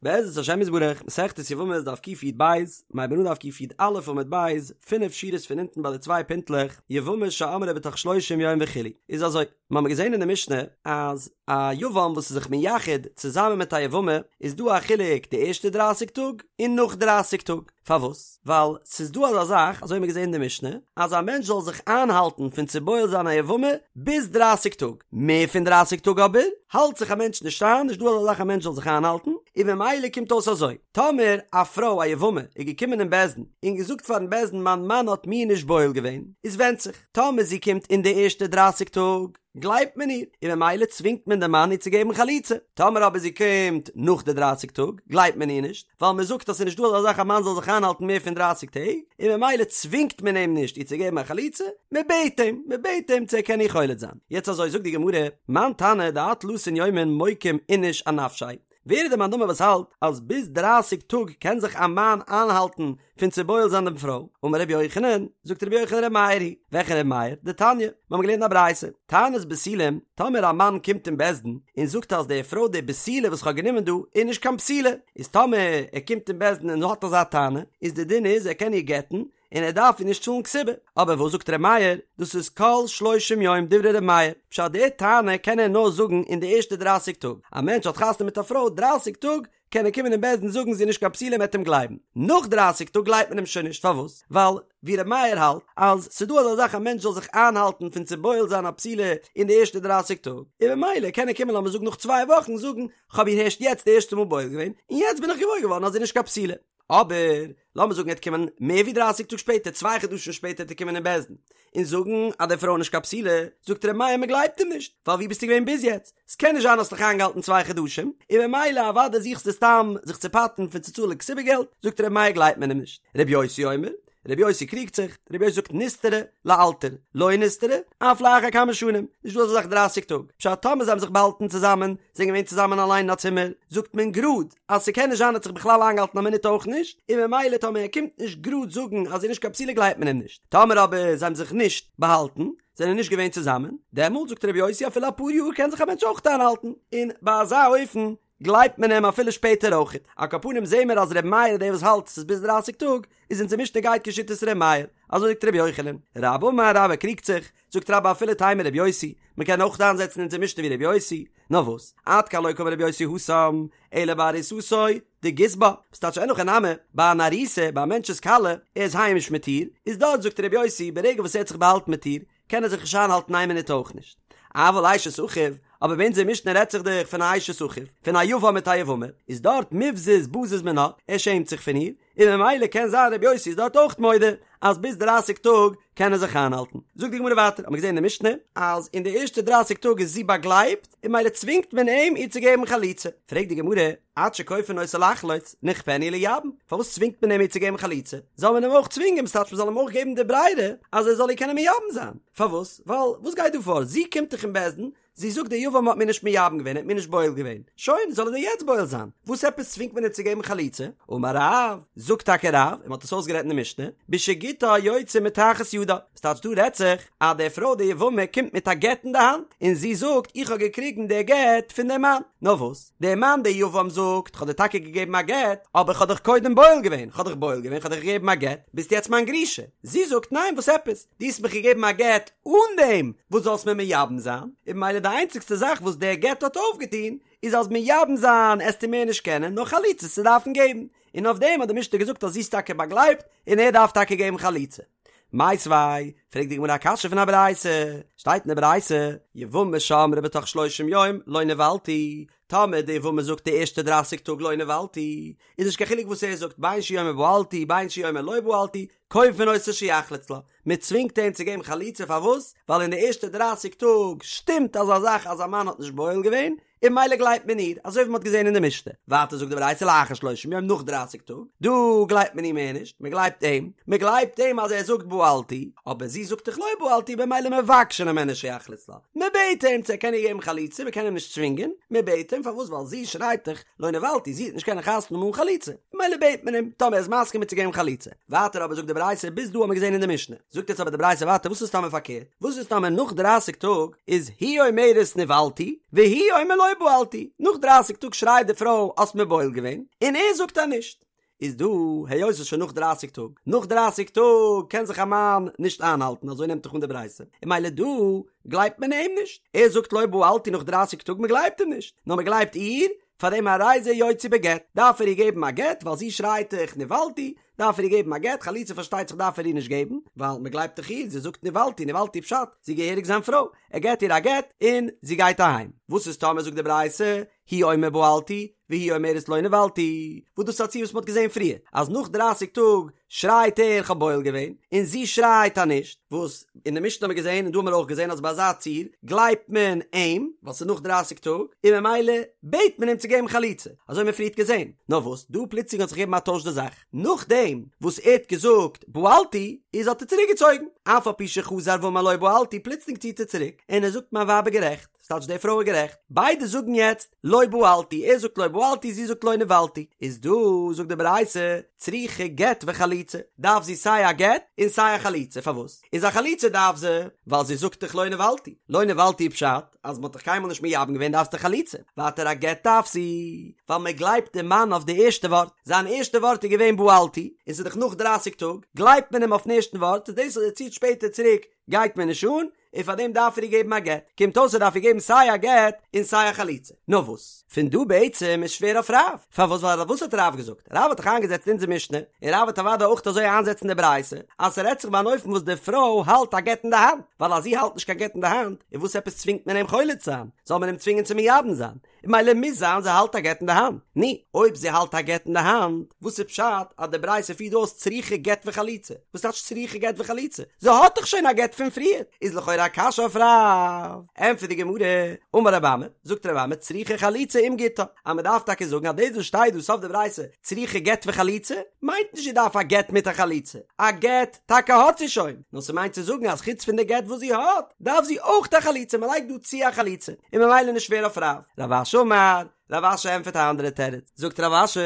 בעזרת השם יתברך, מסכת יבמות דף קי"ב, מ'הייבט אן דף קי"א עמוד ב', פינף שורות פון אונטן ביי די צוויי פינטלעך, יבמה שאמרה בתוך שלושים יום וכו'. איז אזוי, מ'האמיר געזען אין די משנה אז א יבם וואס איז זיך מייחד צוזאמען מיט א יבמה איז דא א חילוק די ערשטע דרייסיג טאג און נאך דרייסיג טאג. פארוואס? ווייל ס'איז דא אזא זאך, אזוי האבן מיר געזען אין די משנה, אז א מענטש זאל זיך איינהאלטן פון צו בועל זיין א יבמה ביז דרייסיג טאג. מער פון דרייסיג טאג אבער, האלט זיך א מענטש נישט איין, נישט דא אזא זאך א מענטש זאל זיך איינהאלטן, און ממילא קומט אויס אזוי, טאמער א פרוי א יבמה איז געקומען אין בית דין און געזאגט פארן בית דין מיין מאן האט מיר נישט בועל געווען, איז ווענדט זיך, טאמער זי קומט אין די ערשטע דרייסיג טאג, גלייבט מען איר, און ממילא צווינגט מען דעם מאן איר צו געבן חליצה. טאמער אבער זי קומט נאך די דרייסיג טאג, גלייבט מען איר נישט, ווייל מען זאגט אז ס'איז נישט דא אזא זאך א מאן זאל זיך איינהאלטן מער פון דרייסיג טעג, און ממילא צווינגט מען אים נישט איר צו געבן א חליצה, מען בעט אים, מען בעט אים צו ער קען איר חולץ זיין. יעצט אזוי זאגט די גמרא, מאן תנא דעד תלתין יומין מוקים איניש אנפשיה, ווער איז דער מאן דאמר וואס האלט אז ביז דרייסיג טאג קען זיך א מאן איינהאלטן פון צו בועל זיין דעם פרוי? אמר רבי יוחנן, זאגט רבי יוחנן רבי מאיר היא, וועלכע רבי מאיר? דתניא, מיר האבן געלערנט א ברייתא, טענת בתולים, טאמער א מאן קומט אין בית דין און זאגט אז די פרוי די בתולה וואס כ'האב גענומען דא איז נישט קיין בתולה, איז טאמער ער קומט אין בית דין און האט אזא טענה, איז די דין איז ער קען איר גט'ן, און ער דארף איר נישט צאלן כתובה, אבער וואס זאגט ר' מאיר, דאס איז כל שלושים יום דברי ר' מאיר, פשט די טענה קען ער נאר זאגן אין די ערשטע דרייסיג טאג, א מענטש האט חתונה מיט א פרוי דרייסיג טאג קען ער קומען אין בית דין זאגן זי איז נישט קיין בתולה מ'עט אים גלייבן, נאך דרייסיג טאג גלייבט מען אים שוין נישט, פארוואס? ווייל ווי ר' מאיר האלט אז ס'איז דא אזא זאך א מענטש זאל זיך איינהאלטן פון צו בועל זיין א בתולה אין די ערשטע דרייסיג טאג, און ממילא קען ער קומען לאמיר זאגן נאך צוויי וואכן זאגן כ'האב איר הערשט יעצט די ערשטע מאל בועל געווען און יעצט בין איך געוואויר געווארן אז זי איז נישט קיין בתולה. אבער לאמיר זאגן ער וועט קומען מער ווי דרייסיג טאג שפעטער, צוויי חדשים שפעטער וועט ער קומען אין בית דין און זאגן אז די פרוי איז נישט קיין בתולה, זאגט ר' מאיר מען גלייבט אים נישט, ווייל ווי ביסטו געווען ביז יעצט? ס'קען נישט זיין האסט דיך איינגעהאלטן צוויי חדשים, און ממילא אוודאי זוכסטו סתם זיך צו פטר'ן פון צו צאלן כתובה געלט, זאגט ר' מאיר גלייבט מען אים נישט. ר' יוסי אומר, ר' יוסי קריגט זיך, ר' יוסי זאגט נסתרה לאלתר, לא נסתרה, אף לאחר כמה שנים, נישט דא אזא זאך דרייסיג טאג, פשט טאמער זיי האבן זיך באהאלטן צוזאמען, זענען געווען צוזאמען אליין אין א צימער, זאגט מען גראד אז ס'קען נישט זיין ער האט זיך בכלל איינגעהאלטן א מינוט אויך נישט, און ממילא טאמער ער קומט נישט גראד זאגן אז זי איז נישט קיין בתולה גלייבט מען אים נישט, טאמער אבער זיי האבן זיך נישט באהאלטן, זענען נישט געווען צוזאמען, דעמאלט זאגט ר' יוסי אפילו אפאר יאר קען זיך א מענטש אויך איינהאלטן, און ביי אזא אופן גלייבט מען אים אפילו שפעטער אויכעט. על כל פנים זעהן מיר אז ר' מאיר איז דער וואס האלט ס'איז ביז דרייסיג טאג, איז אונזער משנה גייט כשיטת ר' מאיר, אזוי זאגט ר' יוחנן. רבה אמר רבה קריגט זיך, זאגט רבה אפילו תימא ר' יוסי, מ'קען אויך איינזעצן אונזער משנה ווי ר' יוסי, נאר וואס, עד כאן לא קאמר ר' יוסי התם, אלא בארוסתו דגז בה, וואס טייטש אין הכי נמי, ביי אן ארוסה, ביי א מענטש'ס כלה, ער איז היימיש מיט איר, איז דארט זאגט ר' יוסי ברגע וואס ער האט זיך באהאלטן מיט איר, קען ער זיך נישט איינהאלטן איין מינוט אויך נישט. אבל אשת אחיו, אבער ביי אונזער משנה רעדט זיך דאך פון א אשת אחיו, פון א יבם מיט א יבמה, איז דארט מיבזז בזיז מינה, ער שעמט זיך פון איר, און ממילא קען זיין רבי יוסי איז דארט אויך מודה אז ביז דרייסיג טאג קען ער זיך איינהאלטן. זאגט די גמרא ווייטער, האט מען געזען אין די משנה, אז אין די ערשטע דרייסיג טאג איז זי באגלייבט, און ממילא צווינגט מען אים איר צו געבן חליצה. פרעגט די גמרא, עד שכופין אותו לחלוץ, נכפינהו לייבם, פארוואס צווינגט מען אים איר צו געבן חליצה? זאל מען אים אויך צווינגען, ס'טייטש מען זאל אים אויך געבן די ברירה אז ער זאל איר קענען מייבם זיין. פארוואס? ווייל וואס גייט דא פאר? זי קומט דאך אין בית דין, זי זאגט דער יבם האט מיר נישט מייבם געווען, ער האט מיר נישט בועל געווען. שוין, זאל ער דיר יעצט בועל זיין. וואס עפעס צווינגט מען אים צו געבן חליצה? אמר רב, זאגט טאקע רב, און מען האט עס אויסגערעדט אין די משנה, בשגיטה יוצא מתחת ידה. ס'טייטש דא רעדט זיך אז די פרוי די יבמה קומט מיט א גט אין די האנט, און זי זאגט איך האב געקריגן די גט פון דעם מאן. נאר וואס, דער מאן דער יבם זאגט כ'האב דיר טאקע געגעבן א גט, אבער כ'האב דיך קודם בועל געווען, כ'האב דיך בועל געווען, כ'האב דיך געגעבן א גט, ביסט יעצט מיין גרושה. זי זאגט ניין וואס עפעס, דו האסט מיך געגעבן א גט אן דעם וואס זאלסט מיר מייבם זיין, און ממילא די איינציגסטע זאך וואס דער גט האט אויפגעטון איז אז מייבם זיין עסטו מער נישט קענען, נאר חליצה עסטו דארפן געבן. און אויף דעם האט די משנה געזאגט אז זי איז טאקע באגלייבט און ער דארף טאקע געבן חליצה. מיתיבי, פרעגט די גמרא א קשיא פון א ברייתא, שטייט אין די ברייתא, יבמה שאמרה בתוך שלושים יום לא נבעלתי, טאמער די יבמה זאגט די ערשטע דרייסיג טאג לא נבעלתי, איז נישט קיין חילוק וואס ער זאגט בין שהוא אומר בעלתי בין שהוא אומר לא בעלתי, כופין אותו שיחלוץ לה, מען צווינגט אים צו געבן חליצה פארוואס? ווייל אין די ערשטע דרייסיג טאג שטימט אזא זאך אז א מאן האט נישט בועל געווען, און ממילא גלייבט מען איר, אזוי ווי מען האט געזען אין די משנה. ווייטער זאגט די ברייתא לאחר שלושים יום נאך דרייסיג טאג, דא גלייבט מען איר מער נישט, מען גלייבט אים, מען גלייבט אים אז ער זאגט בעלתי, אבער זי זאגט דאך לא בעלתי במילא מבקשין הימנו שיחלוץ לה, מען בעט אים צו ער קען איר געבן חליצה, מען קען אים נישט צווינגען, מען בעט אים, פארוואס ווייל זי שרייט דאך לא נבעלתי, זי וועט נישט קענען חתונה האבן אן חליצה, ממילא בעט מען אים, טאמער ער איז מסכים איר צו געבן חליצה. ווייטער אבער זאגט די ברייתא, ביז דא האט מען געזען אין די משנה. זאגט יעצט אבער די ברייתא ווייטער וואס איז טאמער פארקערט? וואס איז טאמער נאך דרייסיג טאג איז היא אומרת נבעלתי והוא אומר לא בעלתי, נאך דרייסיג טאג שרייט די פרוי האסט מיר בועל געווען, און ער זאגט אז נישט. איז דא, היות ס'איז שוין נאך דרייסיג טאג, נאך דרייסיג טאג קען זיך א מאן נישט איינהאלטן, אזוי נעמט דאך אן די ברייתא, און ממילא דא גלייבט מען אים נישט, ער זאגט לא בעלתי נאך דרייסיג טאג, מ'גלייבט אים נישט, נאר מ'גלייבט איר, פאר דעם הרי זה יוציא בגט, דארף ער איר געבן א גט, ווייל זי שרייט דאך נבעלתי, דארף ער איר געבן א גט, חליצה פארשטייט זיך דארף ער איר נישט געבן, ווייל מ'גלייבט דאך איר, זי זאגט נבעלתי, נבעלתי פשט, זי געהעריג זיין פרוי, ער געט איר א גט, און זי גייט אהיים. וואס איז טאמער זאגט די ברייתא, הוא אומר בעלתי, והיא אומרת לא נבעלתי, וואס דאס איז א ציור וואס מ'האט געזען פריער, אז נאך דרייסיג טאג שרייט ער כ'האב בועל געווען, און זי שרייט אז נישט, וואס אין די משנה האט מען געזען און דא האט מען אויך געזען אז ביי אזא ציור גלייבט מען אים, ווייל ס'איז נאך דרייסיג טאג, און ממילא בעט מען אים צו געבן חליצה, אזוי האט מען פריערט געזען, נאר וואס דא פלוצלינג האט זיך געגעבן א טויש די זאך, נאכדעם וואס ער האט געזאגט בעלתי, איז האט ער צוריק געצויגן, אף על פי שחזר ואמר לא בעלתי, פלוצלינג ציט ער צוריק, און ער זאגט מיין ווייב איז גערעכט. ס'טייטש די פרוי איז גערעכט, ביידע זאגן יעצט לא בעלתי, ער זאגט לא בעלתי זי זאגט לא נבעלתי, איז דא זאגט די ברייתא צריכה גט וחליצה, דארף זי סיי א גט און סיי א חליצה, פארוואס איז א חליצה דארף זי? ווייל זי זאגט דאך לא נבעלתי, לא נבעלתי פשט אז מ'האט דיך קיינמאל נישט מייבם געווען דארפסטו חליצה, ווייטער א גט דארף זי ווייל מ'גלייבט די מאן אויף די ערשטע ווארט, זיין ערשטע ווארט איז געווען בעלתי, און ס'איז דאך נאך דרייסיג טאג, גלייבט מען אים אויפן ערשטן ווארט, איז דאס אז ער ציט שפעטער צוריק גייט מען נישט אן, און פאר דעם דארף ער איר געבן א גט, קומט אויס ער דארף איר געבן סיי א גט און סיי א חליצה. נאר וואס? פון דא בעצם איז שווער אויף רב, פארוואס ווייל וואס האט רב געזאגט? רב האט דאך איינגעזעצט אונזער משנה, און רב וועט אוודאי אויך אזוי איינזעצן די ברייתא, אז ס'רעדט זיך ביי אן אופן וואס די פרוי האלט א גט אין די האנט, ווייל אז זי האלט נישט קיין גט אין די האנט, איז וואס עפעס צווינגט מען אים חולץ זיין? זאל מען אים צווינגען צו מייבם זיין? און ממילא מוז זיין זי האלט א גט אין די האנט. נו, אויב זי האלט א גט אין די האנט, וואס איז פשט אז די ברייתא פירט אויס צריכה גט וחליצה? וואס טייטש צריכה גט וחליצה? זי האט דאך שוין א גט פון פריער! איז לכאורה א קשיא אויף רב. ענטפערט די גמרא, אמר רב אמי, זאגט רב אמי צריכה חליצה עם גיטה, אז מען דארף טאקע זאגן אז דאס וואס שטייט דא סוף די ברייתא צריכה גט וחליצה, מיינט נישט זי דארף א גט מיט א חליצה, א גט טאקע האט זי שוין, נאר ס'מיינט צו זאגן אז חוץ פון די גט וואס זי האט, דארף זי אויך א חליצה, מ'לייגט דא צו א חליצה, און ממילא נישט שווער אויף רב. רב אשי אמר, רב אשי ענטפערט א אנדערע תירוץ, זאגט רב אשי,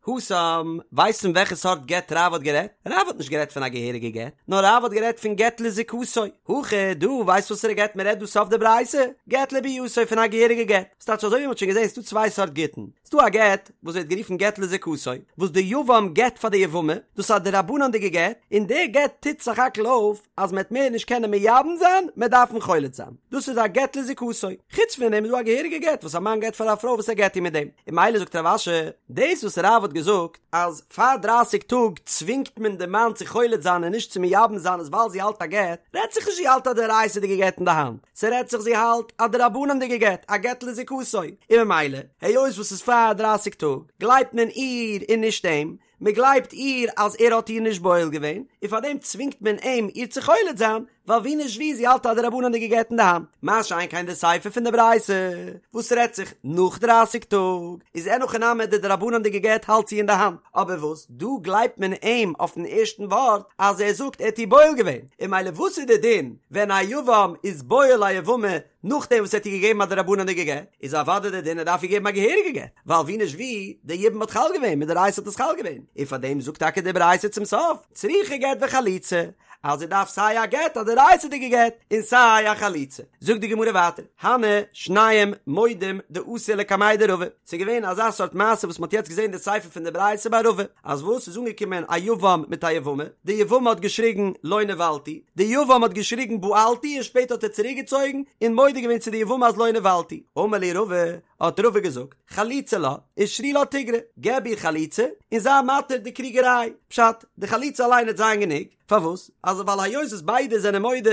התם, ווייסט פון וועלכע סארט גט רב האט גערעדט? רב האט נישט גערעדט פון א געהעריגע גט, נאר רב האט גערעדט פון גט לזיקתו, הכא דא, ווייסט וואסערע גט מ'רעדט דא סוף די ברייתא? גט לביאתו פון א געהעריגע גט, ס'טייטש אזוי ווי מ'האט שוין געזען ס'דא צוויי סארט גיטין, ס'דא א גט וואס ווערט גערופן גט לזיקתו, וואס די יבם געט פאר די יבמה, דאס איז א דרבנן'דיגע גט, און די גט טוט סך הכל אויף אז מ'עט מער נישט קענען מייבם זיין, מ'עט דארפן חולץ זיין. דאס איז א גט לזיקתו. חוץ פון דעם איז דא א געהעריגע גט וואס א מאן געט פאר א פרוי וואס ער גט איר מיט דעם. און ממילא זאגט רב אשי, דאס וואס רב האט געזאגט אז פאר דרייסיג טאג צווינגט מען די מאן צו חולץ זיין און נישט צו מייבם זיין איז ווייל זי האלט א גט, רעדט זיך נישט זי האלט א דאורייתא'דיגע גט אין די האנט, ס'רעדט זיך זי האלט א דרבנן'דיגע גט, א גט לזיקתו, און ממילא, היות וואס ס'איז פאר דרייסיג טאג, גלייבט מען איר און נישט אים, מ'גלייבט איר אז ער האט איר נישט בועל געווען, און פארדעם צווינגט מען אים איר צו חולץ זיין, ווייל ווי נישט ווי זי האלט א דרבנן'דיגע גט אין די האנט. מה שאין כן די סיפא פון די ברייתא, וואס רעדט זיך נאך דרייסיג טאג, איז אין הכי נמי די דרבנן'דיגע גט האלט זי אין די האנט, אבער וואס דא גלייבט מען אים אויפן ערשטן ווארט אז ער זאגט ער האט איר בועל געווען, און ממילא וואס איז די דין ווען א יבם איז בועל א יבמה נאכדעם וואס ער האט איר געגעבן א דרבנן'דיגע גט, איז אוודאי די דין ער דארף איר געבן א געהעריגע גט, ווייל ווי נישט ווי, די יבום האט חל געווען, מדאורייתא האט עס חל געווען, און פארדעם זאגט טאקע די ברייתא צום סוף, צריכה גט וחליצה, אז ער דארף סיי א גט א דאורייתא'דיגע גט און סיי א חליצה. זאגט די גמרא ווייטער, הני שנים מודים דאתו לקמיה דרבא, ס'איז געווען אזא סארט מעשה וואס מ'האט יעצט געזען די סיפא פון די ברייתא ביי רבא, אז וואס ס'איז אנגעקומען א יבם מיט א יבמה, די יבמה האט געשריגן לא נבעלתי, די יבם האט געשריגן בעלתי און שפעטער האט ער צוריקגעצויגן און מודה געווען צו די יבמה אז לא נבעלתי, אמר להו רבא, האט רבא געזאגט, חליצה לה, ושרי לה תיגרא, געב איר חליצה און זיי מתיר די קריגעריי, פשט, די חליצה אליין וועט זיין גענוג, פארוואס? אז ווייל היות וואס ביידע זענען מודה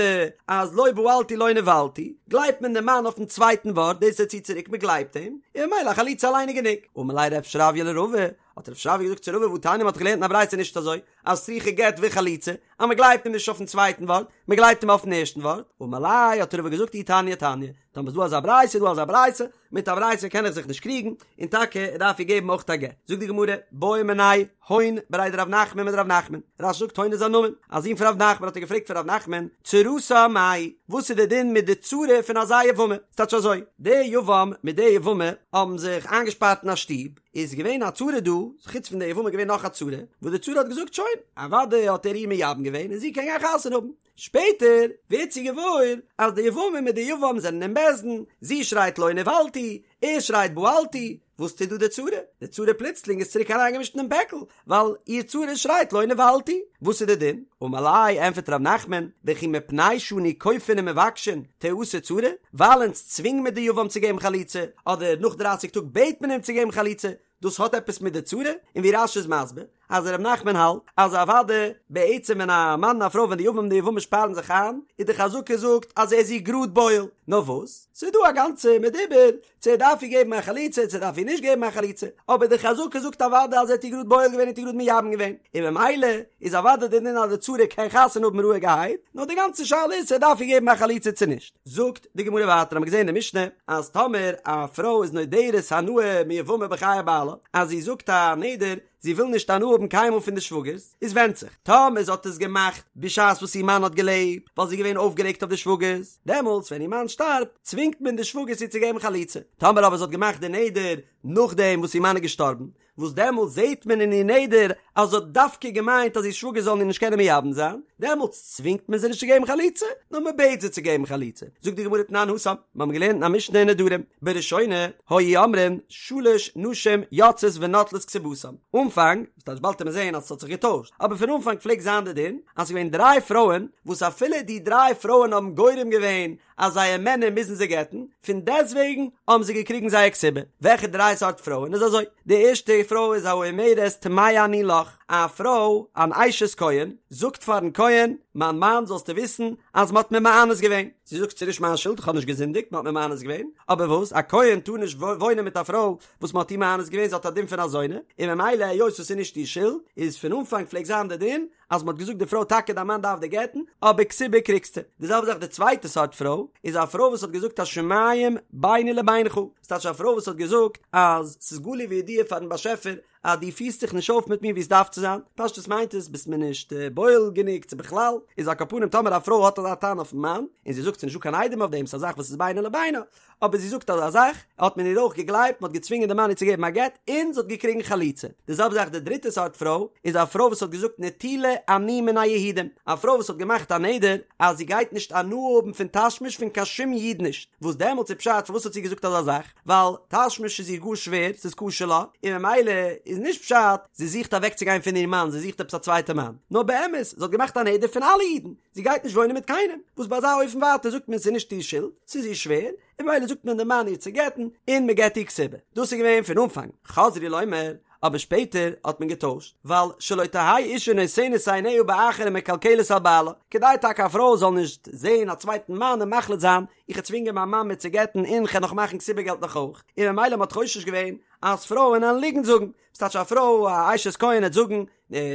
אז לא בעלתי לא נבעלתי, גלייבט מען דעם מאן אויפן צווייטן ווארט, דאס ער ציט צוריק מען גלייבט אים, און ממילא א חליצה אליין איז גענוג. אמר ליה רב שרביא לרבא, האט רב שרביא געזאגט צו רבא והתניא מען האט דאך געלערנט אין א ברייתא נישט אזוי, אז צריכה גט וחליצה, אז מען גלייבט אים נישט אויפן צווייטן ווארט, מען גלייבט אים אויפן ערשטן ווארט, אמר ליה האט רבא געזאגט אי תניא תניא, טאמער איז דא אזא ברייתא איז דא אזא ברייתא, מיט א ברייתא קען איך זיך נישט קריגן, און טאקע ער דארף איר געבן אויך א גט. זאגט די גמרא, בעו מיניה הון בריה דרב נחמן מדרב נחמן, רש"י זאגט הון איז א נאמען, א זון פון רב נחמן האט ער געפרעגט פון רב נחמן, צרתה מאי, וואס איז די דין מיט די צרה פון אזא יבמה? ס'טייטש אזוי, די יבם מיט די יבמה האבן זיך איינגעשפארט אין א שטוב, איז געווען א צרה דא, חוץ פון די יבמה איז געווען נאך א צרה, וואס די צרה האט געזאגט שוין, אוודאי האט ער איר מייבם געווען. געווען און זי קען גיין חתונה האבן. שפעטער ווערט זי געוואויר אז די יבמה מיט די יבם זענען אין בית דין, זי שרייט לא נבעלתי, ער שרייט בעלתי, וואס טוט דא די צרה? די צרה פלוצלינג איז צוריק אריינגעמישט אינעם פעקל, ווייל איר צרה שרייט לא נבעלתי, וואס איז די דין? אמר ליה, ענפערט ר' נחמן, וכי מפני שאנו כופין ומבקשין תיאסר צרה, ווייל אונז צווינג מיר די יבם צו געבן חליצה, אדער נאך דרייסיג טאג בעט מען אים צו געבן חליצה, דאס האט עפעס מיט די צרה? און ווי רש"י איז מסביר אז ר' נחמן האלט אז אוודאי בעצם ווען א מאן און א פרוי ווען די יבם און די יבמה שפארן זיך איין איז די חזקה זאגט אז ער איז איר גראד בועל נאר וואס ס'איז דא א גאנצע מדובר צו ער דארף איר געבן א חליצה צו ער דארף איר נישט געבן א חליצה אבער די חזקה זאגט אוודאי אז ער האט איר גראד בועל געווען און האט איר גראד מייבם געווען און ממילא איז אוודאי די דין אז די צרה קען חתונה האבן רואיגערהייט נאר די גאנצע שאלה איז צו ער דארף איר געבן א חליצה צו נישט זאגט די גמרא ווייטער האמיר געזען אין די משנה אז טאמער א פרוי איז נודרת הנאה מיבמה בחיי בעלה אז זי זאגט א נדר זי וויל נישט הנאה האבן קיינמאל פון די שוואגערס איז ווענדט זיך טאמער זי האט עס געמאכט בשעת וואס איר מאן האט געלעבט ווייל זי איז געווען אויפגערעגט אויף די שוואגערס דעמאלטס ווען איר מאן שטארבט צווינגט מען די שוואגערס איר צו געבן חליצה טאמער אבער זי האט געמאכט די נדר נאכדעם וואס איר מאן איז געשטארבן וואס דעמאלטס זעהט מען אין איר נדר אז זי האט דווקא געמיינט אז איר שוואגער זאלן איר נישט קענען מייבם זיין, דעמאלטס צווינגט מען זי נישט צו געבן חליצה, נאר מען בעט זי צו געבן חליצה. זאגט די גמרא תנן התם, מיר האבן געלערנט אין א משנה אין נדרים, בראשונה היו אומרים שלש נשים יוצאות ונוטלות כתובתן, אנפאנג, וואס טייטש באלד וועט מען זעהן אז עס האט זיך געטוישט, אבער פון אנפאנג פלעגט זיין די דין אז ס'איז געווען דריי פרויען וואס אפילו די דריי פרויען האבן גורם געווען אז זייער מענער מוזן זיי גט'ן, פון דעסטוועגן האבן זיי געקריגן זייער כתובה. וועלכע דריי סארט פרויען איז אזוי? די ערשטע פרוי איז האומרת טמאה אני לך, א פרוי אן אשת כהן זאגט פארן כהן, מיין מאן זאלסטו וויסן אז מ'האט מיר מאנס געווען, זי זאגט ס'איז נישט מיין שולד איך האב נישט געזינדיגט מ'האט מיר מאנס געווען, אבער וואס א כהן טאר נישט וואוינען מיט א פרוי וואס מ'האט איר מאנס געווען זי האט א דין פון א זונה, און ממילא היות עס איז נישט איר שולד איז פון אנפאנג פלעגט זיין די דין אז מ'האט געזאגט די פרוי טאקע דיין מאן דארף דיר גט'ן, אבער כתובה קריגסטו. די זעלבע זאך די צווייטע סארט פרוי, איז א פרוי וואס האט געזאגט השמים ביני לבינך, ס'טייטש א פרוי וואס האט געזאגט אז ס'איז גלוי וידוע פארן באשעפער אז דו פירסט זיך נישט אויף מיט מיר ווי עס דארף צו זיין, פשטות מיינט עס ביסט מיר נישט בועל גענוג צו בכלל, איז על כל פנים טאמער א פרוי האט אזא טענה אויפן מאן, און זי זאגט ס'איז נישטא קיין עדים אויף דעם ס'איז א זאך וואס איז בינו לבינה, אבער זי זאגט אזא זאך, האט מען איר אויך געגלייבט, מען האט געצווינגען די מאן איר צו געבן א גט, און זי האט געקריגן חליצה. די זעלבע זאך די דריטע סארט פרוי, איז א פרוי וואס האט געזאגט נטולה אני מן היהודים, א פרוי וואס האט געמאכט א נדר אז זי גייט נישט הנאה האבן פון תשמיש פון קיין שום איד נישט, וואס דעמאלטס איז פשט פארוואס האט זי געזאגט אזא זאך, ווייל תשמיש איז איר גאר שווער, ס'איז קשה לה, און ממילא איז נישט פשט זי זוכט אוועקצוגיין פון איר מאן, זי זוכט עפעס א צווייטע מאן, נאר באמת זי האט געמאכט א נדר פון אלע אידן, זי גייט נישט וואוינען מיט קיינעם, וואס ביי אזא אופן ווייטער זאגט מען ס'איז נישט איר שולד, ס'איז איר שווער, און ממילא זאגט מען די מאן איר צו גט'ן, און מען געט איר כתובה. דאס איז געווען פון אנפאנג, חזרו לומר, אבער שפעטער האט מען געטוישט, ווייל שלא תהא אישה נותנת עיניה באחר ומקלקלת על בעלה, כדי טאקע א פרוי זאל נישט זען א צווייטן מאן און מחליט זיין, איך וועל צווינגען מיין מאן מיר צו גט'ן און כ'וועל נאך מאכן כתובה געלט נאך אויך, און ממילא מען האט חושש געווען אז פרויען וועלן ליגנט זאגן, ס'טייטש א פרוי א אשת כהן וועט זאגן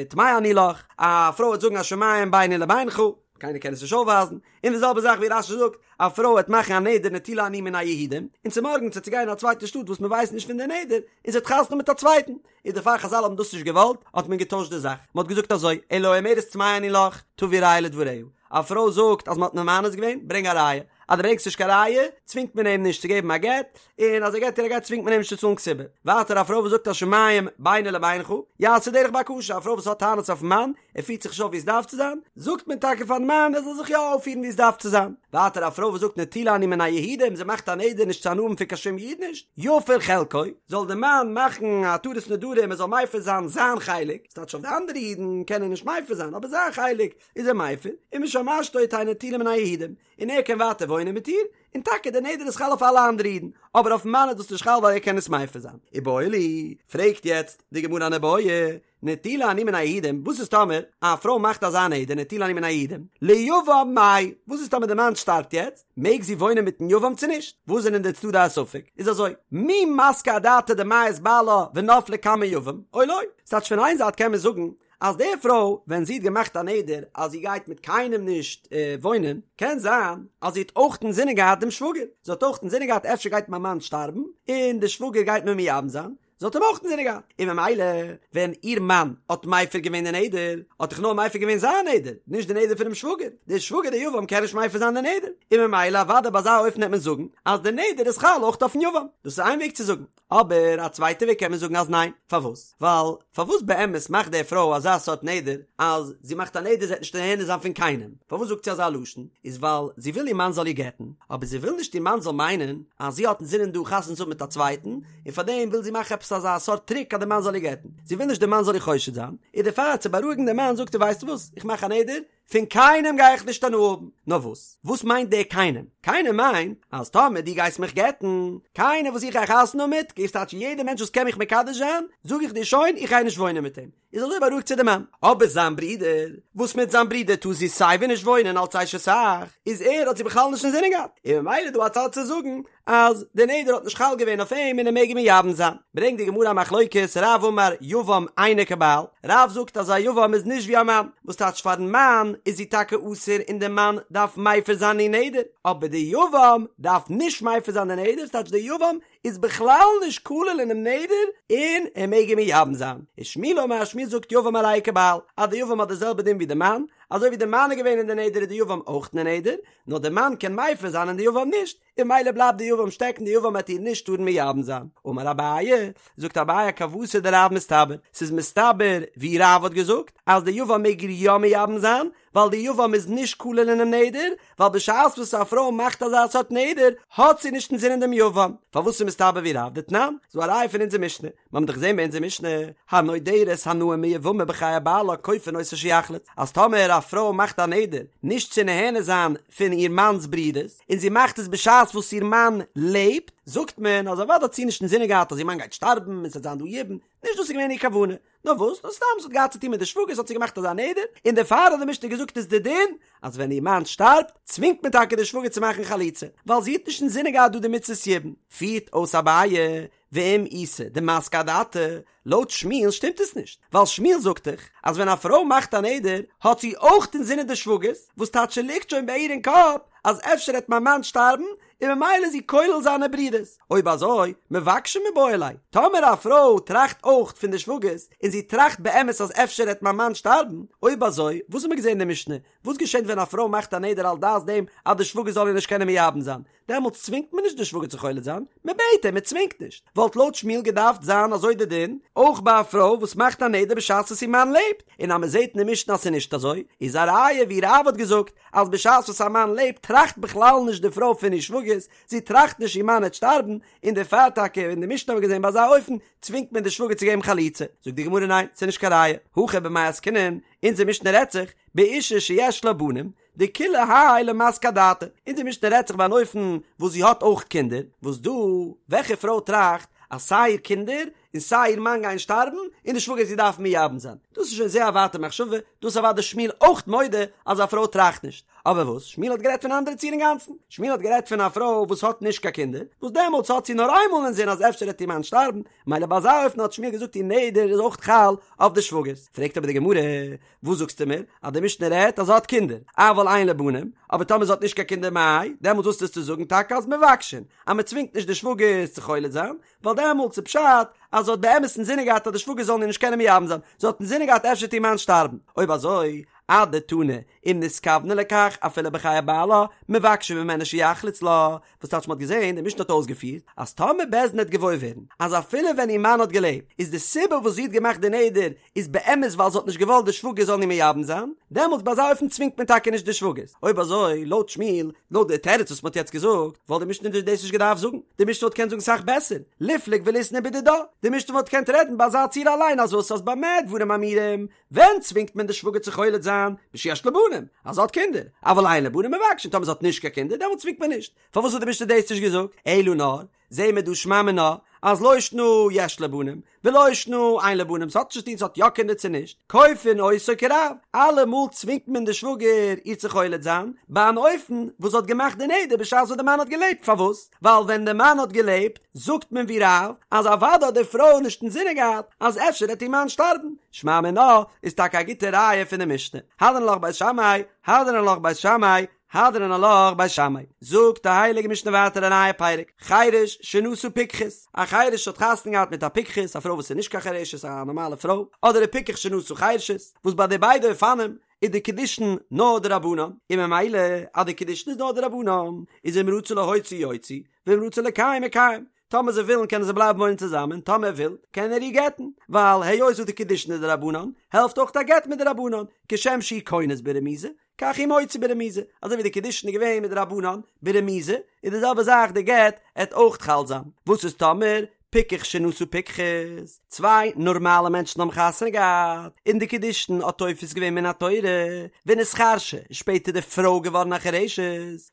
טמאה אני לך, א פרוי וועט זאגן השמים ביני לבינך, קיינער קען עס נישט אויפווייזן, און די זעלבע זאך ווי רש"י זאגט, א פרוי וועט מאכן א נדר נטולה אני מן היהודים, און צומארגנס וועט זי גיין אין א צווייטע שטאט וואס מען ווייסט נישט פון די נדר, און זי האט חתונה מיט א צווייטן, איז דערפאר חז"ל האבן דאס נישט געוואלט, האט מען געטוישט די זאך, מען האט געזאגט אזוי, אלא האומרת טמאה אני לך, תביא ראיה לדבריה, א פרוי זאגט אז מען האט מיר מאנס געווען, ברענג א ראיה, אז דו ברענגסט נישט קיין ראיה, צווינגט מען אים נישט צו געבן א גט, און אז ער געבט איר א גט צווינגט מען אים נישט צו צאלן כתובה. ווייטער א פרוי וואס זאגט השמים ביני לבינך, יעשה דרך בקשה, א פרוי וואס האט טענות אויפן מאן, ער פירט זיך נישט אויף ווי עס דארף צו זיין, זאגט מען טאקע פארן מאן ער זאל זיך יא אויפפירן ווי עס דארף צו זיין. ווייטער א פרוי וואס זאגט נטולה אני מן היהודים, זי מאכט א נדר נישט צו הנאה האבן פון קיין שום איד נישט, יפר חלקו, זאל דער מאן מאכן א התרת נדרים ער זאל מפר זיין זיין חלק, ס'טייטש אויף די אנדערע אידן קען ער נישט מפר זיין, אבער זיין חלק איז ער מפר, ומשמשתו תהא נטולה מן היהודים, און ער קען ווייטער וואוינען מיט איר, און טאקע דער נדר איז חל אויף אלע אנדערע אידן, אבער אויפן מאן איז דאס נישט חל ווייל ער קען עס מפר זיין. איבעיא להו, פרעגט יעצט די גמרא אן איבעיא, נטולה אני מן היהודים, וואס איז טאמער א פרוי מאכט אזא נדר נטולה אני מן היהודים, ליבם מאי, וואס איז טאמער די מאן שטארבט יעצט, מעג זי וואוינען מיטן יבם צו נישט? וואס זענען די צדדי הספק? איז אזוי, מי מסקא אדעתה דמיית בעלה ונפלה קמי יבם, או לא? ס'טייטש פון איין זייט קען מען זאגן אז די פרוי ווען זי האט געמאכט א נדר אז זי גייט מיט קיינעם נישט וואוינען, קען זיין אז זי האט אויך אינזינען געהאט דעם שוואגער, זי האט אויך אינזינען געהאט אפשר גייט מיין מאן שטארבן און די שוואגער גייט מיר מייבם זיין, זי האט אים אויך אינזינען געהאט, און ממילא ווען איר מאן האט מפר געווען די נדר, האט דאך נאר מפר געווען זיין נדר, נישט די נדר פונעם שוואגער, דער שוואגער דער יבם קען נישט מפר זיין די נדר, און ממילא אוודאי ביי אזא אופן העט מען זאגן אז די נדר איז חל אויך אויפן יבם, דאס איז איין וועג צו זאגן, אבער א צווייטע וועג קען מען זאגן אז ניין, פארוואס? ווייל פארוואס באמת מאכט די פרוי אזא סארט נדר אז זי מאכט א נדר זי וועט נישט נהנה זיין פון קיינעם, פארוואס זאגט זי אזא לשון? איז ווייל זי וויל איר מאן זאל איר גט'ן, אבער זי וויל נישט איר מאן זאל מיינען אז זי האט אינזינען דא חתונה צו האבן מיט א צווייטן, און פארדעם וויל זי מאכן עפעס אזא סארט טריק אז די מאן זאל איר גט'ן, זי וויל נישט די מאן זאל איר חושד זיין, און דערפאר צו בארואיגן די מאן זאגט זי ווייסט וואס, איך מאך א נדר, פון קיינעם גיי איך נישט הנאה האבן, נאר וואס? וואס מיינט דער קיינעם? קיינעם מיינט אז טאמער דו גייסט מיך גט'ן, קיינער וואס איך גיי חתונה האבן מיט, גייסט טייטש יעדער מענטש וואס קען מיך מקדש זיין, זאג איך דיר שוין איך גיי נישט וואוינען מיט אים, איז אזוי בארואיגט זי די מאן. אבער זיין ברודער, וואס מיט זיין ברודער טאר זי סייווי נישט וואוינען אלץ אשת אח, איז ער האט זי בכלל נישט אינזינען געהאט, און ממילא איז דא א צד צו זאגן אז די נדר האט נישט חל געווען אויף אים און ער מעג אים מייבם זיין. ברענגט די גמרא א מחלוקת, רב אמר יבם אינו כבעל, רב זאגט אז א יבם איז נישט ווי א מאן, וואס טייטש פארן מאן איז זי טאקע אסור און די מאן דארף מפר זיין איר נדר, אבער די יבם דארף נישט מפר זיין די נדר, ס'טייטש די יבם איז בכלל נישט כולל אינעם נדר און ער מעג אים מייבם זיין. ושמואל אמר שמואל זאגט יבם הרי הוא כבעל, אז די יבם האט די זעלבע דין ווי די מאן, אזוי ווי די מאן איז געווען אין די נדר איז די יבם אויך אין די נדר, נאר די מאן קען מפר זיין און די יבם נישט, און ממילא בלייבט די יבם שטעקן די יבם וועט איר נישט טארן מייבם זיין. אמר אביי, זאגט אביי כוותיה דרב מסתבר, ס'איז מסתבר ווי רב האט געזאגט אז די יבם מעג איר יא מייבם זיין, ווייל די יבם איז נישט כולל אינעם נדר, ווייל בשעת וואס א פרוי מאכט אזא סארט נדר האט זי נישט אינזינען דעם יבם. פארוואס איז מסתבר ווי רב? דתנן, ס'דא א ראיה פון אונזער משנה, מיר האבן דאך געזען ביי אונזער משנה, הנודרת הנאה מיבמה בחיי בעלה כופין אותו שיחלוץ, אז טאמער א פרוי מאכט א נדר נישט צו נהנה זיין פון איר מאנ'ס ברודערס, און זי מאכט עס בשעת וואס איר מאן לעבט, זאגט מען אז אוודאי האט זי נישט אינזינען געהאט אז איר מאן גייט שטארבן און ס'וועט זיין דא יבום, נישט דאס איז געווען איר כוונה, נאר וואס, נאר סתם ס'האט געהאט צו טון מיט די שוואגערס האט זי געמאכט אזא נדר, און דערפאר האט די משנה געזאגט איז די דין אז ווען איר מאן שטארבט צווינגט מען טאקע די שוואגער צו מאכן חליצה, ווייל זי האט נישט אינזינען געהאט דא די מצות יבום. פירט אויס אביי, ואם איתא דמסקא אדעתה, לויט שמואל שטימט עס נישט, ווייל שמואל זאגט דאך אז ווען א פרוי מאכט א נדר האט זי אויך אינזינען די שוואגערס, וואס טייטש ס'ליגט שוין ביי איר אין קאפ אז אפשר העט מיין מאן שטארבן און ממילא איז זי כולל זיינע ברודערס, אויב אזוי מבקשין מיבעי ליה, טאמער א פרוי טראכט אויך פון די שוואגערס און זי טראכט באמת אז אפשר העט מיין מאן שטארבן, אויב אזוי וואס האט מען געזען אין די משנה, וואס געשענט ווען א פרוי מאכט א נדר על דעת דעם אז די שוואגער זאל איר נישט קענען מייבם זיין, דעמאלטס צווינגט מען נישט די שוואגער צו חולץ זיין, מען בעט אים, מען צווינגט נישט. וואלט לויט שמואל געדארפט זיין אזוי די דין, אויך ביי א פרוי וואס מאכט א נדר בשעת וואס איר מאן לעבט, און אז מען זעט אין די משנה אז ס'איז נישט אזוי, איז א ראיה ווי רב האט געזאגט, אז בשעת וואס א מאן לעבט טראכט בכלל נישט די פרוי פון איר שוואגערס, זי טראכט נישט איר מאן העט שטארבן, און דערפאר טאקע אין די משנה האבן מיר געזען ביי אזא אופן צווינגט מען די שוואגער צו געבן חליצה. זאגט די גמרא ניין, ס'איז נישט קיין ראיה, הכא במאי עסקינן, אונזער משנה רעדט זיך, באשה שיש לה בנים, דכולי האי למסקא אדעתה, אונזער משנה רעדט זיך ביי אן אופן וואס זי האט אויך קינדער, וואס דא, וועלכע פרוי טראכט אז סיי איר קינדער און סיי איר מאן גייען שטארבן און די שוואגער זי דארף מייבם זיין, דאס איז שוין זייער א ווייטע מחשבה, דאס איז אוודאי שמואל אויך מודה אז א פרוי טראכט נישט, אבער וואס, שמואל האט גערעדט פון א אנדערע ציור אינגאנצן, שמואל האט גערעדט פון א פרוי וואס האט נישט קיין קינדער, וואס דעמאלטס האט זי נאר איינמאל אינזין אז אפשר וועט איר מאן שטארבן, מילא ביי אזא אופן האט שמואל געזאגט איר נדר איז אויך חל אויף די שוואגערס, פרעגט אבער די גמרא, וואס זאגסטו מיר? אז די משנה רעדט אז זי האט קינדער, אבל אין לה בנים, אבער טאמער זי האט נישט קיין קינדער מאי, דעמאלטס וואס טוסטו זאגן טאקע אז מבקשין, אז מען צווינגט נישט די שוואגערס צו חולץ זיין, ווייל דעמאלטס איז פשט אז זי האט באמת אינזינען געהאט אז די שוואגערס זאלן איר נישט קענען מייבם זיין, זי האט אינזינען געהאט אפשר וועט איר מאן שטארבן, אויב אזוי, אדתני, אם נתכוונה לכך אפילו בחיי בעלה, מבקשין ממנו שיחלוץ לה, וואס טייטש מ'האט געזען, די משנה האט אויסגעפירט, אז טאמער בית דין העט געוואויר ווערן, אז אפילו ווען איר מאן האט געלעבט, איז די סיבה וואס זי האט געמאכט די נדר, איז באמת ווייל זי האט נישט געוואלט די שוואגער זאלן איר מייבם זיין, דעמאלטס ביי אזא אופן צווינגט מען טאקע נישט די שוואגערס. אויב אזוי, לויט שמואל, לויט די תירוץ וואס מ'האט יעצט געזאגט, וואלט די משנה דאס נישט געדארפט זאגן, די משנה וואלט געקענט זאגן סאך בעסער, ליפלוג וליתני בדידה, די משנה וואלט געקענט רעדן ביי אזא ציור אליין אז וואס אז במה דברים אמורים, ווען צווינגט מען די שוואגער צו חולץ זיין? בשיש לה בנים, אז זי האט קינדער, אבל אין לה בנים מבקשין, טאמער זי האט נישט קיין קינדער דעמאלט צווינגט מען נישט, פארוואס האט די משנה דאס נישט געזאגט? אלא נאר, זעהן מיר דא שמע מינה, אז לא שנא יש לה בנים, ולא שנא אין לה בנים, ס'האט נישט צו טון צו האט יא קינדער צו נישט, כופין אותו כרב, אלעמאל צווינגט מען די שוואגער איר צו חולץ זיין, ביי אן אופן וואס זי האט געמאכט די נדר בשעת וואס די מאן האט געלעבט, פארוואס? ווייל ווען די מאן האט געלעבט זאגט מען ווי רב אז אוודאי האט די פרוי נישט אינזינען געהאט אז אפשר וועט איר מאן שטארבן, שמע מינה איז טאקע א גוטע ראיה פון די משנה, הדרן עלך בית שמאי, הדרן עלך בית שמאי. הדרן עלך בית שמאי. זאגט די הייליגע משנה ווייטער א נייע פרק, חירש שנשא פיקחת, א חירש האט חתונה געהאט מיט א פיקחת, א פרוי וואס איז נישט קיין חירשת, א נארמאלע פרוי, אדער א פיקח שנשא חירשת, וואס ביי די ביידע אופנים איז די קידושין נאר דרבנן, און ממילא אז די קידושין איז נאר דרבנן, איז אם רצה להוציא יוציא, ואם רצה לקיים מקיים, טאמער זיי ווילן קענען זיי בלייבן וואוינען צוזאמען, טאמער ער וויל קען ער איר גט'ן, ווייל היות וואס די קידושין איז דרבנן, העלפט אויך א גט מדרבנן, כשם שהוא כונס ברמיזה, כך הוא מוציא ברמיזה, אזוי ווי די קידושין איז געווען מדרבנן ברמיזה, איז די זעלבע זאך די גט עט אויך חל זיין, וואס איז טאמער פיקח שנשא פיקחת, צוויי נארמאלע מענטשן האבן חתונה געהאט, און די קידושין האט תופס געווען מן התורה, ונתחרשה, איז שפעטער די פרוי געווארן א חירשת,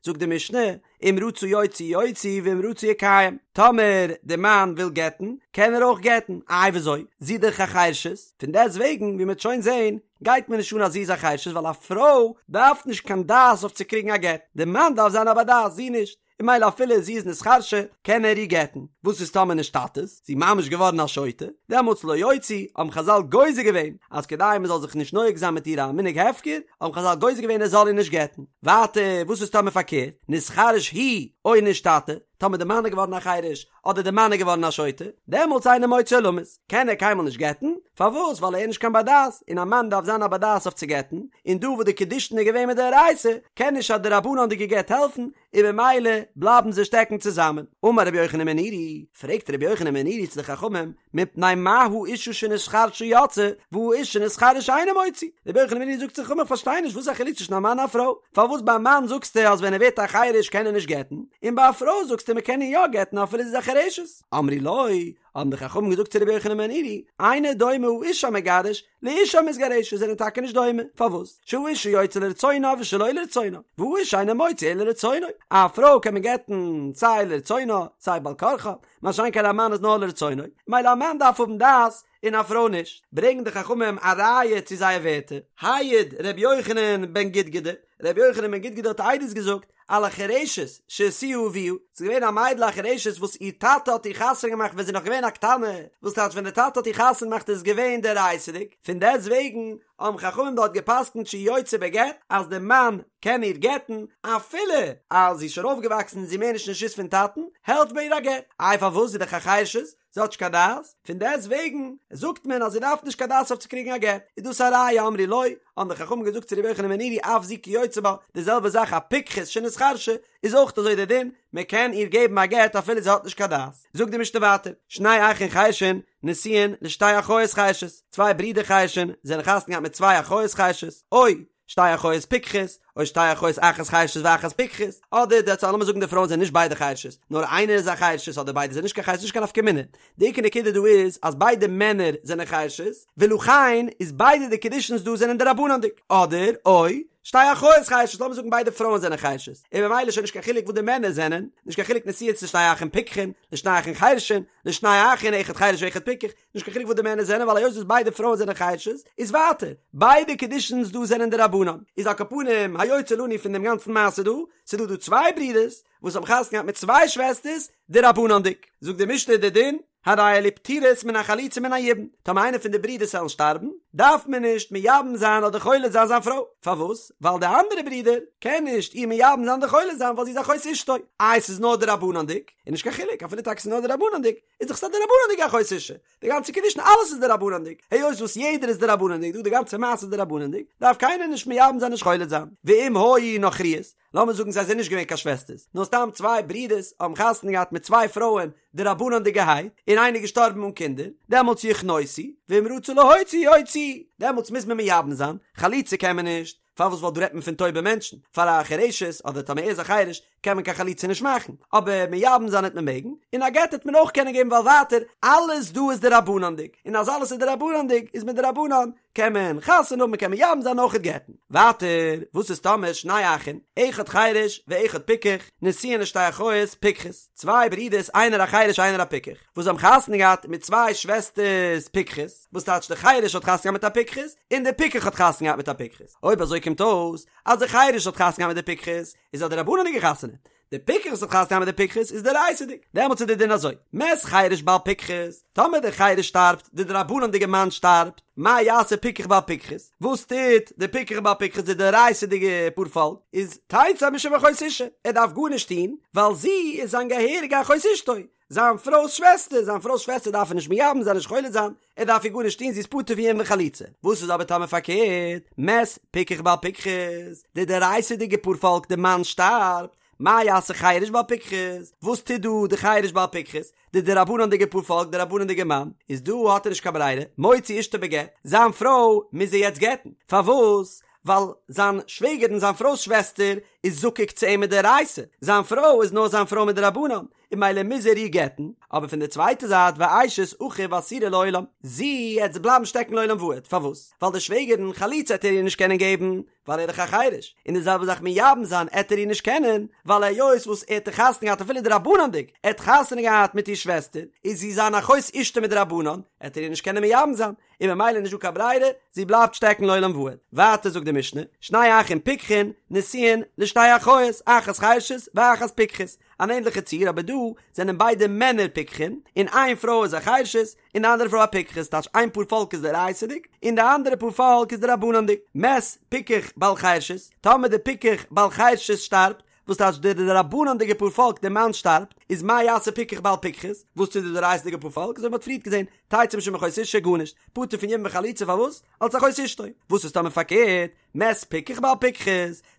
זאגט די משנה, אם רצה יוציא יוציא ואם רצה יקיים, טאמער די מאן וויל גט'ן, קען ער אויך גט'ן, איי וויאזוי? זי איז דאך א חירשת, פון דעסט וועגן ווי מ'וועט שוין זען, גייט מיר נישט אן אז זי איז א חירשת ווייל א פרוי דארף נישט קיין דעת אויף צו קריגן א גט, די מאן דארף זיין א בר דעת, זי נישט. און ממילא אפילו זי איז נתחרשה קען ער איר גט'ן, וואס איז טאמער נשתטית, זי ממש געווארן א שוטה, דעמאלטס לא יוציא, האבן חזל גוזר געווען אז כדי מען זאל זיך נישט נוהג זיין מיט איר א מנהג הפקר, האבן חזל גוזר געווען ער זאל איר נישט גט'ן. ווייטער, וואס איז טאמער פארקערט, נתחרש הוא או נשתטה, טאמער די מאן איז געווארן א חירש, אדער די מאן איז געווארן א שוטה, דעמאלטס אינו מוציא עולמית, קען ער קיינמאל נישט גט'ן, פארוואס? ווייל ער איז נישט קיין בר דעת, און א מאן דארף זיין א בר דעת אויף צו גט'ן, און דא וואס די קידושין איז געווען מדאורייתא, קען נישט א דרבנן'דיגע גט העלפן, און ממילא בלייבן זיי שטעקן צוזאמען. אמר רבי יוחנן בן נורי, פרעגט רבי יוחנן בן נורי צו די חכמים, מפני מה האשה שנתחרשה יוצאה, והאיש שנתחרש אינו מוציא? רבי יוחנן בן נורי זאגט צו די חכמים, איך פארשטיי נישט, וואס איז א חילוק צווישן א מאן און א פרוי? פארוואס ביי א מאן זאגסטו אז ווען ער ווערט א חירש קען ער נישט גט'ן, און ביי א פרוי זאגסטו מען קען איר יא גט'ן אפילו זי איז א חירשת? אמרו לו, האבן די חכמים געזאגט צו רבי יוחנן בן נורי, אינו דומה האיש המגרש לאשה המתגרשת זענען טאקע נישט דומה, פארוואס? שהאשה יוצאה לרצונה ושלא לרצונה, והאיש אינו מוציא אלא לרצונו, א פרוי קען מען גט'ן סיי לרצונה סיי בעל כרחה, מה שאין כן א מאן איז נאר לרצונו, ממילא א מאן דארף האבן דעת און א פרוי נישט, ברענגן די חכמים א ראיה צו זייער ווערטער, העיד ר' יוחנן בן גודגדא, ר' יוחנן בן גודגדא האט עדות געזאגט, על החרשת שהשיאה אביה, ס'איז געווען א מיידל א חרשת וואס איר טאטע האט איר חתונה געמאכט ווען זי איז נאך געווען א קטנה, וואס טייטש ווען די טאטע האט איר חתונה געמאכט איז עס געווען דאורייתא'דיג, פון דעסט וועגן האבן חכמים דארט גע'פסק'נט שהיא יוצאה בגט אז די מאן קען איר גט'ן אפילו אז זי איז שוין אויפגעוואקסן און זי איז מער נישט אין רשות פון טאטן, העלפט ביי איר א גט. איי פארוואס זי איז דאך א חרשת? זי האט נישט קיין דעת, פון דעסט וועגן זאגט מען אז זי דארף נישט קיין דעת אויף צו קריגן א גט, איז דאס א ראיה אמרו לו, האבן די חכמים געזאגט צו רבי יוחנן בן נורי אף זו כיוצא בה, די זעלבע זאך א פיקחת שנתחרשה איז אויך אזוי דער דין, מען קען איר געבן א גט אפילו זי האט נישט קיין דעת. זאגט די משנה ווייטער, שני אחין חרשין נשואין לשתי אחיות חרשות, צוויי ברידער חרשין זענען חתונה געהאט מיט צוויי אחיות חרשות, או שתי אחיות פיקחות, או שתי אחיות אחת חרשת ואחת פיקחת, אדער די הצעה לאמיר זאגן די פרויען זענען נישט ביידע חרשות, נאר איינער איז א חרשת אדער ביידע זענען נישט קיין חרשת נישט קיין נפקא מינה, די עיקר נקודה דא איז אז ביידע מענער זענען חרשות, ולכן איז ביידע די קידושין'ס דא זענען דרבנן'דיג, אדער או שתי אחיות חרשות לאמיר זאגן ביידע פרויען זענען חרשות, און ממילא איז שוין נישט קיין חילוק וואס די מענער זענען, נישט קיין חילוק נשואות לשני אחים פיקחין, לשני אחים חרשין, לשני אחים אחד חרש ואחד פיקח, נישט קיין חילוק וואס די מענער זענען ווייל היות וואס ביידע פרויען זענען חרשות איז ווייטער ביידע קידושין'ס דא זענען דרבנן איז על כל פנים היוצא לנו פון דעם גאנצן מעשה דא ס'איז דא דא צוויי ברידערס וואס האבן חתונה געהאט מיט צוויי שוועסטערס דרבנן'דיג זאגט די משנה די דין הרי אלו פטורות מן החליצה ומן היבום טאמער איינער פון די ברידערס וועלן שטארבן דארף מען נישט מייבם זיין אדער חולץ זיין זיין פרוי פארוואס ווייל די אנדערע ברודער קען נישט איר מייבם זיין אדער חולץ זיין ווייל זי איז אחות אשתו איי ס'איז נאר דרבנן'דיג איז נישט קיין חילוק אפילו טאקע ס'איז נאר דרבנן'דיג איז דאך ס'איז א דרבנן'דיגע אחות אשה, די גאנצע קידושין אלעס איז דרבנן'דיג, היות וואס יעדער איז דרבנן'דיג דא די גאנצע מעשה איז דרבנן'דיג, דארף קיינער נישט מייבם זיין נישט חולץ זיין, ואם היו נכריות, לאמיר זאגן זיי זענען נישט געווען קיין שוועסטערס, נאר סתם צוויי ברידערס האבן חתונה געהאט מיט צוויי פרויען דרבנן'דיגערהייט, און איינער איז געשטארבן אן קינדער, דעמאלטס יכנוסו, ואם רצו להוציא יוציאו, דעמאלטס מוז מען מייבם זיין, חליצה קען מען נישט, פארוואס ווייל דא רעדט מען פון טויבע מענטשן, פאר א חירשת אדער טאמער ער איז א חירש קען מען קיין חליצה נישט מאכן, אבער מייבם זיין העט מען מעגן, און א גט העט מען אויך קענען געבן ווייל ווייטער אלעס דא איז דרבנן'דיג, און אז אלעס איז דרבנן'דיג איז מדרבנן קען מען חתונה האבן קען מען מייבם זיין אויכעט גט'ן. ווייטער וואס איז טאמער שני אחין, אחד חירש ואחד פיקח, נשואין לשתי אחיות פיקחות, צוויי ברידערס איינער א חירש איינער א פיקח, וואס האבן חתונה געהאט מיט צוויי שוועסטערס פיקחות, וואס טייטש די חירש האט חתונה געהאט מיט א פיקחת, און די פיקח האט חתונה געהאט מיט א פיקחת, אויב אזוי קומט אויס אז די חירש האט חתונה געהאט מיט די פיקחת, איז א דרבנן'דיגע חתונה. די פיקח וואס האט חתונה געהאט מיט די פיקחת איז דאורייתא'דיג, דעמאלטס איז די דין אזוי, מת חרש בעל פיקחת, טאמער דער חרש שטארבט, די דרבנן'דיגע מאן שטארבט, מה יעשה פיקח בעל פיקחת, וואס טוט די פיקח בעל פיקחת די דאורייתא'דיגע פארפאלק, איז תצא משום אחות אשה, ער דארף גארנישט טון, ווייל זי איז זיין געהעריגע אחות אשתו, זיין פרוי'ס שוועסטער, זיין פרוי'ס שוועסטער דארף ער נישט מייבם זיין נישט חולץ זיין, ער דארף איר גארנישט טון זי איז פטור פון יבום וחליצה, וואס איז אבער טאמער פארקערט, מת פיקח בעל פיקחת, די דאורייתא'דיגע פארפאלק די מאן שטארבט, מה יעשה חרש בעל פיקחת, וואס טוט דא די חרש בעל פיקחת, די דרבנן'דיגע פארפאלק די רבנן'דיגע מאן, איז דא האט ער נישט קיין ברירה, מוציא אשתו בגט, זיין פרוי מוז ער יעצט גט'ן, פארוואס? ווייל זיין שוועגערין זיין פרוי'ס שוועסטער איז זקוק צו אים מדאורייתא, זיין פרוי איז נאר זיין פרוי מדרבנן, און ממילא מוז ער איר גט'ן, אבער פון די צווייטע זייט ואשת אחיו אסורה לעולם, זי עט בלייבן שטעקן לעולם ועד, פארוואס? ווייל די שוועגערין חליצה עט ער איר נישט קענען געבן, ווייל ער איז דאך א חרש, און די זעלבע זאך מייבם זיין עט ער איר נישט קענען, ווייל היות וואס ער האט חתונה געהאט אפילו דרבנן'דיג, ער האט חתונה געהאט מיט איר שוועסטער, איז זי זיין אחות אשתו מדרבנן, עט ער איר נישט קענען מייבם זיין, און ממילא נישט דא קיין ברירה, זי בלייבט שטעקן לעולם ועד. ווייטער זאגט די משנה, שני אחים פיקחין, נשואין לשתי אחיות, אחת חרשת ואחת פיקחת, אן ענדליכע ציור אבער דא זענען ביידע מענער פיקחין, און איין פרוי איז א חרשת, און די אנדערע פרוי א פיקחת, טייטש איין פאר פאלק איז דאורייתא'דיג, און די אנדערע פאר פאלק איז דרבנן'דיג. מת פיקח בעל חרשת, טאמער די פיקח בעל חרשת שטארבט, וואס טייטש די דרבנן'דיגע פאר פאלק די מאן שטארבט, איז מה יעשה פיקח בעל פיקחת, וואס טוט די דאורייתא'דיגע פאר פאלק, אזוי ווי מ'האט פריערט געזען, תצא משום אחות אשה גארנישט, פטור פון יבום וחליצה פארוואס? אלס אחות אשתו, וואס איז טאמער פארקערט, מת פיקח בעל פיקחת,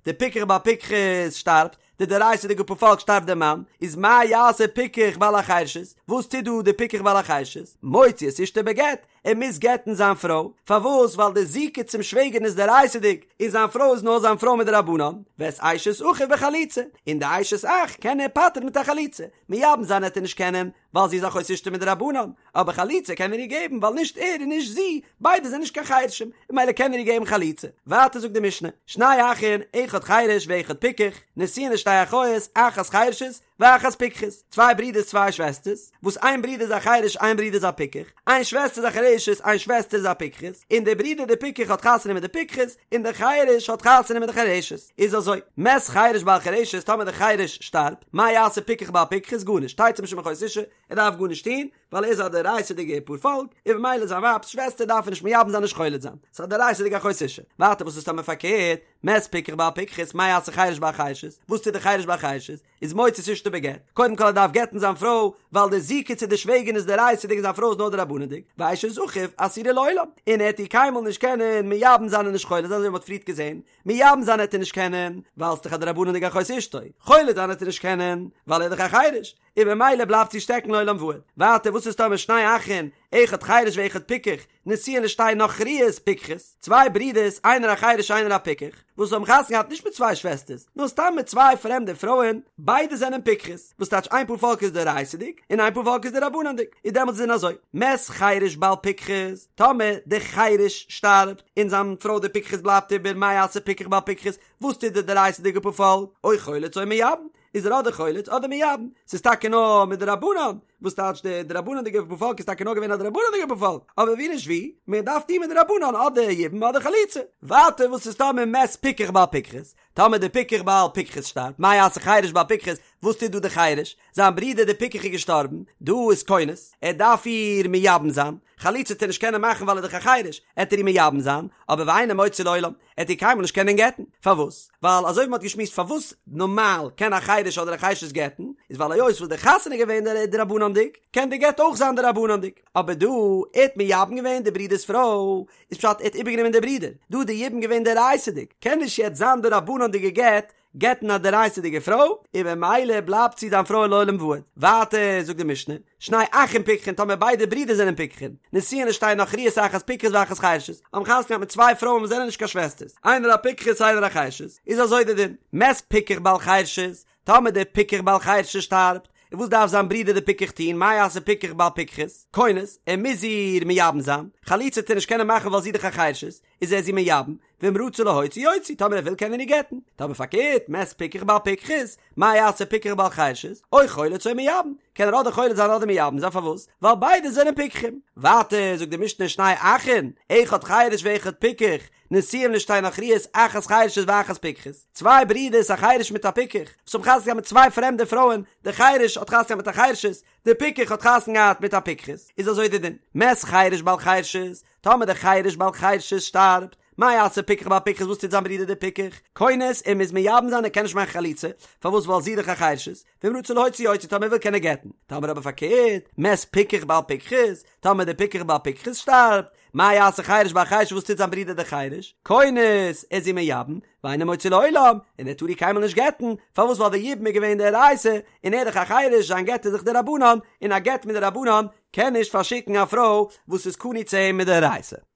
די פיקח בעל פיקחת שטארבט, די דאורייתא'דיגע פאר פאלק שטארבט דער מאן, איז מה יעשה פיקח בעל החרשת, וואס טוט דא די פיקח בעל החרשת, מוציא את אשתו בגט, ער מוז גט'ן זיין פרוי, פארוואס? ווייל די זיקה צום שוועגערין איז דאורייתא'דיג, און זיין פרוי איז נאר זיין פרוי מדרבנן, ואת אשת אחיו בחליצה, און די אשת אח קען ער פטר'ן מיט א חליצה, מייבם זיין עט ער נישט קענען, ווייל זי איז אחות אשתו מדרבנן, אבער חליצה קען ער איר געבן ווייל נישט ער און נישט זי, ביידע זענען נישט קיין חרשים, און ממילא קען ער איר געבן חליצה. ווייטער זאגט די משנה, שני אחין, אחד חרש ואחד פיקח, נשואין לשתי אחיות, אחת חרשת, ואחת פיקחת, צוויי ברידערס צוויי שוועסטערס, וואס איין ברודער איז א חרש איין ברודער איז א פיקח, איין שוועסטער איז א חרשת איין שוועסטער איז א פיקחת, און דער ברודער דער פיקח האט חתונה מיט די פיקחת, און דער חרש האט חתונה מיט די חרשת. איז אזוי, מת חרש בעל חרשת, טאמער דער חרש שטארבט, מה יעשה פיקח בעל פיקחת, גארנישט, תצא משום אחות אשה, ער דארף גארנישט טון, ווייל ער איז א דאורייתא'דיגע פארפאלק, און ממילא זיין ווייב'ס שוועסטער דארף ער נישט מייבם זיין נישט חולץ זיין, ס'איז א דאורייתא'דיגע אחות אשה. ווייטער וואס איז טאמער פארקערט, מת פיקח בעל פיקחת, מה יעשה חרש בעל חרשת, וואס טוט דער חרש בעל חרשת, איז מוציא את אשתו בגט, קודם כל ער דארף גט'ן זיין פרוי, ווייל די זיקה צו די שוועגערין איז דאורייתא'דיג און זיין פרוי איז נאר דרבנן'דיג, ואשת אחיו אסורה לעולם, און ער העט איר קיינמאל נישט קענען מייבם זיין און נישט חולץ זיין אזוי ווי מ'האט פריערט געזען, מייבם זיין העט ער נישט קענען, ווייל ס'איז דאך א דרבנן'דיגע אחות אשתו, חולץ זיין העט ער נישט קענען, ווייל ער איז דאך א חרש, און ממילא בלייבט זי שטעקן לעולם ועד. ווייטער וואס איז טאמער שני אחין, אחד חרש ואחד פיקח, נשואין לשתי נכריות פיקחות, צוויי ברידערס איינער א חרש איינער א פיקח, וואס האבן חתונה געהאט נישט מיט צוויי שוועסטערס, נאר סתם מיט צוויי פרעמדע פרויען, ביידע זענען פיקחות, וואס טייטש איין פאר פאלק איז דאורייתא'דיג, און איין פאר פאלק איז דרבנן'דיג, איז דעמאלטס איז אזוי, מת חרש בעל פיקחת, טאמער דער חרש שטארבט, און זיין פרוי די פיקחת בלייבט איבער, מה יעשה פיקח בעל פיקחת, וואס טוט די דאורייתא'דיגע פאר פאלק, או חולץ או מייבם, איז ער אדער חולץ אדער מייבם, ס'איז טאקע נאר מדרבנן, וואס טייטש די דרבנן'דיגע פארפאלק איז טאקע נאר געווען א דרבנן'דיגע פארפאלק, אבער ווי נישט ווי, מען דארף טון מדרבנן אדער יבום אדער חליצה. ווייטער וואס איז טאמער מת פיקח בעל פיקחת, טאמער די פיקח בעל פיקחת שטארבט, מה יעשה חרש בעל פיקחת, וואס טוט דא די חרש, זיין ברודער די פיקח איז געשטארבן, דא איז כונס, ער דארף איר מייבם זיין, חליצה וועט ער נישט קענען מאכן ווייל ער איז דאך א חרש, עט ער איר מייבם זיין, אבער ואינו מוציא לעולם, ער וועט איר קיינמאל נישט קענען גט'ן. פארוואס? ווייל אזוי ווי מ'האט געשמועסט פארוואס נארמאל קען א חרש אדער א חרשת גט'ן, איז ווייל היות וואס די חתונה איז געווען דרבנן'דיג, קען די גט אויך זיין דרבנן'דיג. אבער דא, ער האט מייבם געווען די ברודער'ס פרוי, איז פשט ער האט איבערגענומען די ברודער. דא איז די יבום געווען דאורייתא'דיג, קען נישט יעצט זיין דרבנן'דיגע גט גט'ן א דאורייתא'דיגע פרוי, און ממילא בלייבט זי זיין פרוי לעולם ועד. ווייטער זאגט די משנה, שני אחים פיקחין טאמער ביידע ברידער זענען פיקחין, נשואין לשתי נכריות אחת פיקחת ואחת חרשת, האבן חתונה געהאט מיט צוויי פרויען וואס זענען נישט קיין שוועסטערס, איינער א פיקחת איינער א חרשת, איז אזוי די דין, מת פיקח בעל חרשת, טאמער דער פיקח בעל חרשת שטארבט, און וואס דארף זיין ברודער דער פיקח טון, מה יעשה פיקח בעל פיקחת, כונס, ער מוז איר מייבם זיין, חליצה וועט ער נישט קענען מאכן ווייל זי איז דאך א חרשת, איז ער זי מייבם, ואם רצה להוציא יוציא, טאמער ער וויל קען ער איר גט'ן, טאמער פארקערט, מת פיקח בעל פיקחת, מה יעשה פיקח בעל חרשת, או חולץ או מייבם, קען ער אדער חולץ זיין אדער מייבם זיין, פארוואס? ווייל ביידע זענען פיקחים. ווייטער זאגט די משנה שני אחין, אחד חרש ואחד פיקח, נשואים לשתי נכריות אחת חרשת ואחת פיקחת, צוויי ברידערס א חרש מיט א פיקח, וואס האבן חתונה געהאט מיט צוויי פרעמדע פרויען, דער חרש האט חתונה געהאט מיט א חרשת, דער פיקח האט חתונה געהאט מיט א פיקחת, איז אזוי די דין, מת חרש בעל חרשת, טאמער דער חרש בעל חרשת שטארבט, מה יעשה פיקח בעל פיקחת וואס טוט זיין ברודער דער פיקח? כונס ער מוז מייבם זיין ער קען נישט מאכן חליצה, פארוואס ווייל זי איז דאך א חרשת, ואם רצה להוציא יוציא טאמער ער וויל קען ער גט'ן, טאמער אבער פארקערט, מת פיקח בעל פיקחת, טאמער דער פיקח בעל פיקחת שטארבט, מה יעשה חרש בעל חרשת וואס טוט זיין ברודער דער חרש? כונס, ער איז זי מייבם, ואינו מוציא לעולם, און ער טאר איר קיינמאל נישט גט'ן, פארוואס ווייל די יבום איז געווען דאורייתא, און ער איז דאך א חרש, זיין גט איז דאך דרבנן, און א גט מדרבנן קען נישט פארשיקן א פרוי וואס איז קנוי צו אים מדאורייתא.